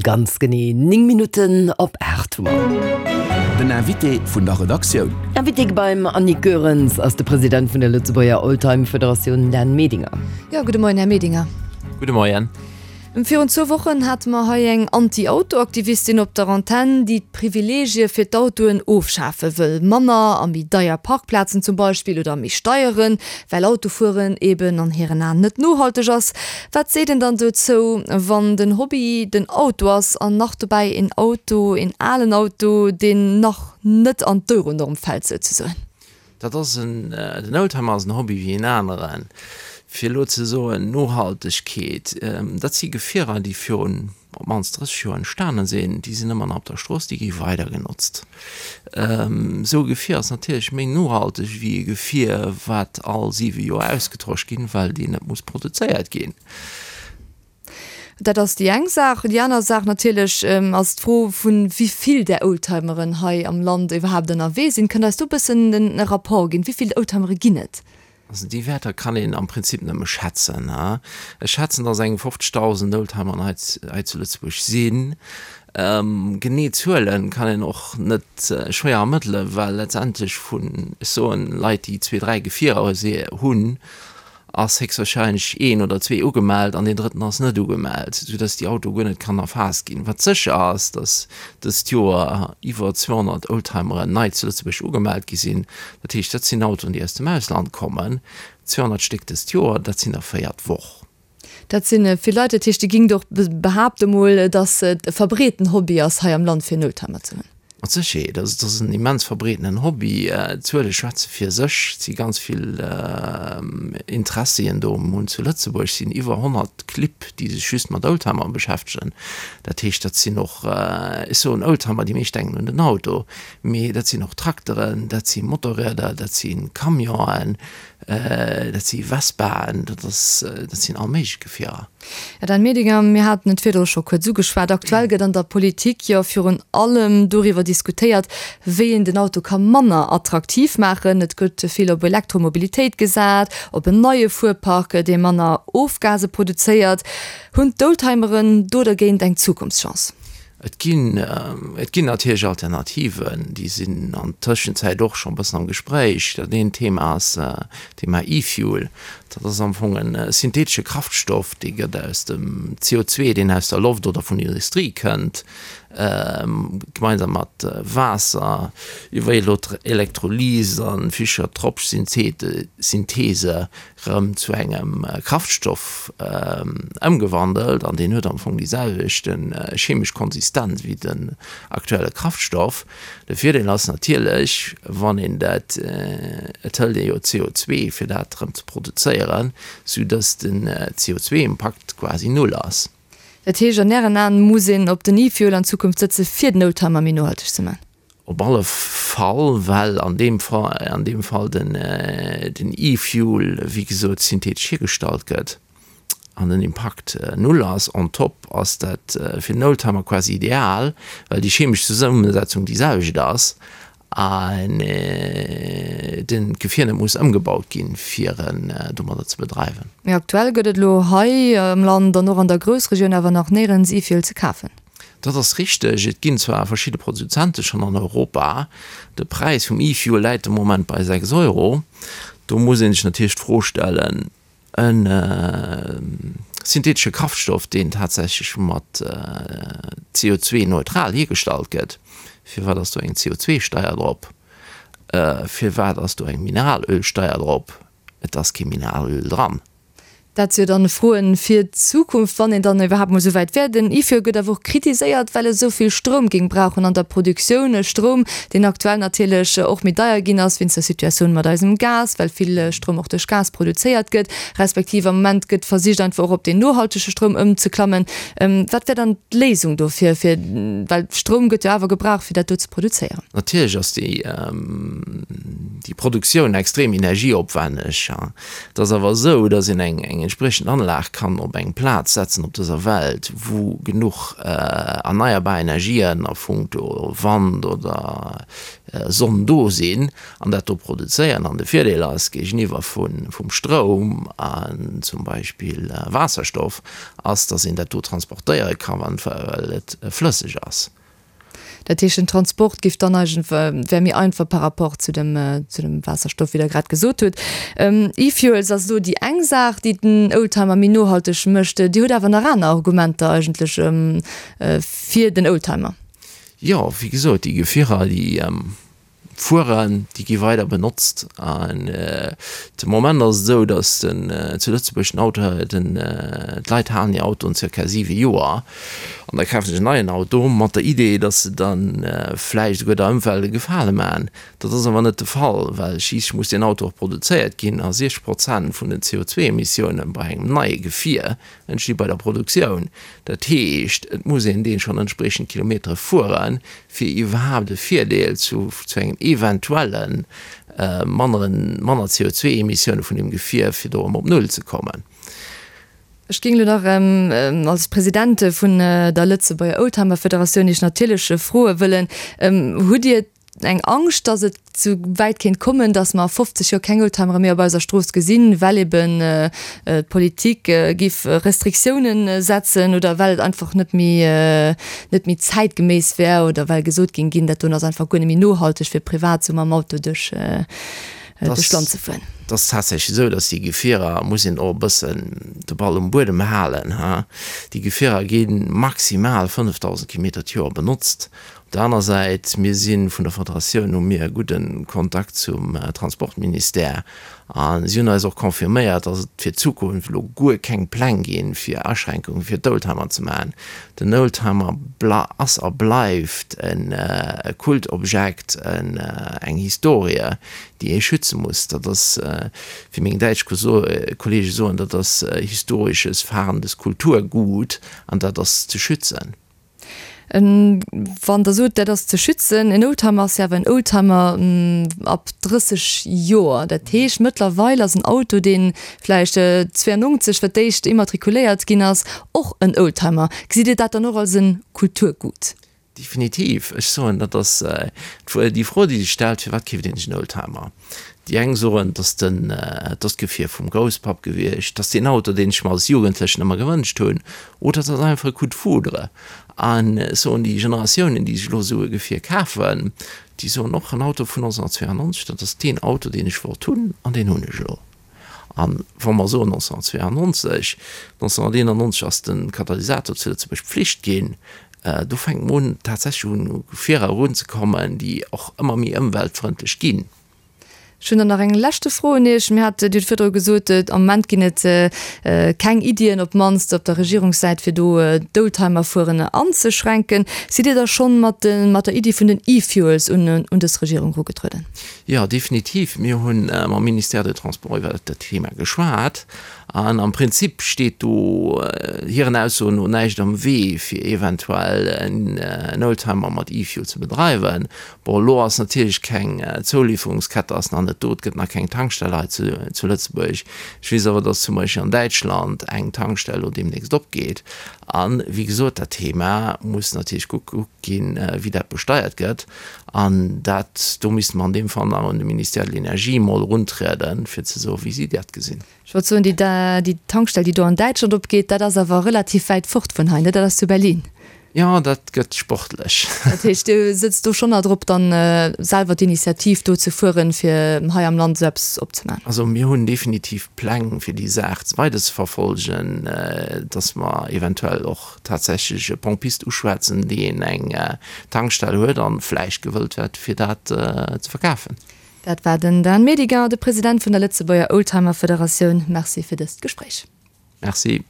Ganz genee 9 Minutten op 8 hu mer. Den Invité vun der Redaktioun. Invité beim Annick Goerens ass de President vun der Lëtzebuerger Oldtime Federatioun Dan Medinger. Jo, gudde Moien, Här Medinger. Gudde Moien. Virun zwou Wochen hate mer hei eng Anti-Auto-Aktivistin op der Antenn, déi d'Privileegie fir d'Autoen ofschafe wëll. Manner a méi deier Parkplazen zum Beispill oder méi Steieren, well Autofueren eben an hiren Aen net nohalteg ass. Wat seet een dann dozou, wann den Hobby den Auto ass an nach dobäi een Auto, een alen Auto, deen nach net an d'Euronorm fält souzesoen? Dat ass en, den Oldtimer ass en Hobby wéi een aneren. Fir elo ze soen, Nohaltegkeet, dat si Gefierer, déi virun op d'mannst 30 Joer entstanen sinn, déi sinn ëmmer nach op der Strooss, déi gi weider genotzt. Esou e Gefier ass natierlech méi nohalteg wéi e Gefier, wat all siwe Joer ausgetosch ginn, well deen net muss produzéiert ginn. Dat ass déi eng Saach. Déi aner Saach natierlech ass d'Fro vu wéi vill där Oldtimeren hei am Land iwwerhaapt ënnerwee sinn. Kënnt Der eis do e bëssen e Rapport ginn? Wéi vill Oldtimere ginn et? Also déi Wäerter kann een am Prinzip nëmme schätzen. Ech schätzen, datt eng 50.000 Oldtimeren hei hei zu Lëtzebuerg sinn. Genee Zuele kann een och net schwéier ermëttelen, well letztendlech vun, ech soen, Leit, déi zwee, dräi Gefierer hunn, ass héchstwahrscheinlech een oder zwee ugemellt an deen drëtten ass net ugemellt, soudass déi Auto guer net kann erfaasst ginn. Wat sécher ass, dass dëst Joer iwwer 200 Oldtimeren nei zu Lëtzebuerg ugemellt gi sinn. Dat heescht, dat sinn Autoen, déi aus dem Ausland kommen. 200 Stéck dëst Joer, dat sinn der 4 d'Woch. Dat si vill Leit. Dat heescht, Dir gingt och behaapte mol, dass et e verbreeten Hobby ass hei am Land fir en Oldtimer ze hunn? Mat Sécherheet. Also et ass en immens verbreetenen Hobby. D'Zuele schwätze fir sech. Et si ganz vill Interessien do. Mir hunn zu Lëtzebuerg sinn iwwer 100 Clibb, déi sech just mat Oldtimer beschäftegen. Dat heescht, dat sinn och, ech soen Oldtimer, déi meescht denken un den Auto, mee dat sinn och Trakteren, dat si Motorrieder, dat si Camionen, Dat si Vespaen, dat ass, dat sinn all méiglech Gefierer. Här Dan Medinger, mir haten et virdru scho kuerz ugeschwat, Aktuell gëtt an der Politik jo virun allem doriwwer diskutéiert, wéi een den Auto ka manner attraktiv maachen. Et gëtt vill op Elektromobilitéit gesat, op en neie Fuerpark, dee manner Ofgase produzéiert. Hunn d'Oldtimeren do dergéint eng Zukunftschance? Et ginn, et ginn natierlech Alternativen, déi sinn an Tëschenzäit och scho e bëssen am Gespréich. Dat eent Thema ass d'Thema E-Fuel. Dat ass am Fong e synthetesche Kraftstoff, dee gëtt aus dem CO2, deen aus der Loft oder vun der Industrie kënnt, gemeinsam mat Waasser iwwer Elektrolyse a Fischer-Tropsch-Synthese rëm zu engem Kraftstoff ëmgewandelt an deen huet am Fong déi selwecht chemesch Konsistenz wéi den aktuelle Kraftstoff. De Virdeel ass natierlech, wann een dat, et hëlt ee jo CO2 fir dat rëm ze produzéieren, sou datt den CO2-Impakt quasi null ass. Dat heescht, an Ären Aen muss een op den E-Fuel an Zukunft sëtze fir den Oldtimer méi nohalteg ze man? Op alle Fall, well an deem Fall, an deem Fall den, den E-Fuel, wéi gesot, synthetesch hiergestallt gëtt an den Impakt null ass. On top ass dat fir den Oldtimer quasi ideal, well déi chemesch Zesummesetzung déi selwecht ass an den d'Gefier net muss ëmgebaut ginn, fir en domadder ze bedreiwen. Mee aktuell gëtt et elo hei am Land an och an der Groussregioun awer nach néierens E-Fuel ze kafen. Dat ass richteg. Et ginn zwar verschidde Produzente schonn an Europa. De Präis vum E-Fuel läit de Moment bei 6 Euro. Do muss ee sech natierlech d'Fro stellen, e synthetesche Kraftstoff, deen tatsächlech mat CO2-neutral hiergestallt gëtt, firwat ass do eng CO2-Steier drop? Firwat ass do eng Mineralölsteier drop? Et ass kee Mineralöl dran. Dat si jo dann Froen fir d'Zukunft, wann een dann iwwerhaapt mol esou wäit wär. Den IFÖ gëtt awer och kritiséiert, well e sou vill Stroum géing brauchen an der Produktioun. E Stroum, deen aktuell natierlech och méi deier ginn ass wéinst der Situatioun mat eisem Gas, well vill Stroum och duerch Gas produzéiert gëtt, respektiv am Moment gëtt versicht einfach och op deen nohaltege Stroum ëmzeklammen. Wat wär dann d'Léisung dofir, fir, well Stroum gëtt jo awer gebraucht, fir dat do ze produzéieren? Natierlech ass déi Produktioun extrem energieopwänneg. Et ass awer esou, datt een eng eng. entspriechend Anlag kann op eng Plaz setzen op dëser Welt, wou genuch erneierbar Energien a punkto Wand oder Sonn do sinn an dat do produzéieren, an de Virdeel ass géigeniwwer vum Stroum an zum Beispill Waasserstoff, ass, datt een dat do transportéiere ka well et flësseg ass. Dat heescht, den Transport géif dann eigentlech, wär méi einfach par rapport zu dem, zu dem Waasserstoff, wéi Der grad gesot hutt. E-Fuels ass elo déi eng Saach, déi den Oldtimer méi nohalteg mécht. Dir hutt awer nach aner Argumenter eigentlech fir den Oldtimer. Jo, wéi gesot, déi Gefierer, déi fueren, déi gi weider benotzt. An de Moment ass et esou, datt den zu Lëtzebuerg den Auto, den d'Leit halen hir Autoen zirka 7 Joer an da kafe sech en neien Auto mat der Idee, datt se dann vläicht esouguer der Ëmwelt e Gefale maachen. Dat ass awer net de Fall, well schliisslech muss deen Auto och produzéiert ginn a 60 Prozent vun den CO2-Emissioune bei engem neie Gefier entsti bei der Produktioun. Dat heescht, et muss een dee schonn entspriechend Kilometere fueren, fir iwwerhaapt e Virdeel zu zu engem eventuelle manneren, manner CO2-Emissioune vun deem Gefier, fir do erëm op Null ze kommen. Ech géing elo nach als President vun der Lëtzebuerger Oldtimer-Federatioun Iech natierlech froe wëllen, Hutt Dir eng Angscht, dass et sou wäit kéint kommen, dass mer a 50 Joer keng Oldtimere méi op eiser Strooss gesinn, well eben d'Politik géif Restriktiounen setzen oder well et einfach net méi net méi zäitgeméiss wär oder well gesot géing ginn, dat doen ass einfach guer net méi nohalteg fir privat sou mam Auto duerch duerch d'Land ze fueren. Et ass tatsächlech esou, dass déi Gefierer, muss een och e bëssen de Ball um Buedem halen, ha, déi Gefierer gi maximal 5.000 Kilometer d'Joer benotzt. Op der aner Säit, mir si vun der Federatioun hu mir e gudde Kontakt zum Transportministère a si hunn eis och confirméiert, datt et fir d'Zukunft elo guer keng Pläng ginn, fir Aschränkunge fir d'Oldtimer ze maachen. Den Oldtimer ass a bleift e Kultobjekt, eng Historie, déi ee schütze muss. Dat ass, wéi meng däitsch Kollege soen, dat ass historisches fahrendes Kulturgut an dat ass ze schützen. Wann Der sot, dat ass ze schützen, en Oldtimer ass jo awer en Oldtimer ab 30 Joer. Dat heescht, mëttlerweil ass en Auto, dee vläicht 92 fir d'éischt immatrikuléiert ginn ass, och en Oldtimer. Gesitt Dir dat dann och als e Kulturgut? Definitiv. Ech soen, dat ass déi Fro, déi sech stellt, Firwat keeft een sech en Oldtimer? Déi eng soen, et ass den, et ass d'Gefier vum Grousspapp gewiescht, et ass deen Auto, deen ech mer als Jugendlechen ëmmer gewënscht hunn, oder et ass einfach e Coup de foudre. A soen déi Generatiounen, déi sech elo esou e Gefier kafen, déi soen och, en Auto vun 1992, dat ass deen Auto, deen ech wollt hunn an deen hunn ech elo. A wa mer soen 1992, 1991 ass de Katalysator zu Lëtzebuerg Pflicht ginn, do fänkt mer un tatsächlech un u Gefierer erunzekommen, déi och ëmmer méi ëmweltfrëndlech ginn. Ech hunn dann nach eng leschte Fro un Iech. Mir hat, Dir hutt virdru gesot, am Moment ginn et keng Iddien, op d'mannst op der Regierungssäit, fir do d'Oldtimerfueren anzeschränken. Sidd Dir da schonn mat mat der Iddi vun den E-Fuels un un dës Regierung erugetrueden? Jo, definitiv. Mir hu mam Ministère des Transports iwwer dat Thema geschwat. An am Prinzip steet do hiren Aussoen no näischt am Wee, fir eventuell en Oldtimer mat E-Fuel ze bedreiwen. Bon, elo ass natierlech keng Zouliferungskette ass nach net do, et gëtt nach keng Tankstell hei zu Lëtzebuerg. Ech weess awer, datt zum Beispill an Däitschland eng Tankstell elo deemnächst opgeet. A wéi gesot, dat Thema muss natierlech gekuckt ginn, wéi dat besteiert gëtt. An dat, do misste mer an deem Fall nach un de Ministère de l'Énergie emol eruntrieden, fir ze soen, wéi si dat gesinn. Ech wollt soen, déi Tankstell, déi do an Däitschland opgeet, dat ass awer relativ wäit fort vun hei, ne? Dat ass zu Berlin. Jo, dat gëtt sportlech. Dat heescht, Dir sëtzt do schonn nach drop, dann selwer d'Initiativ do ze fueren, fir hei am Land esou eppes opzemaachen? Also mir hunn definitiv Pläng, fir déi Saach weiderzeverfolgen, dass mer eventuell och tatsächlech e Pompist uschwätzen, deen eng Tankstell huet an vläicht gewëllt wär, fir dat ze verkafen. Dat war den Dan Medinger, de President vun der Lëtzebuerger Oldtimer Federatioun. Merci fir dëst Gespréich. Merci.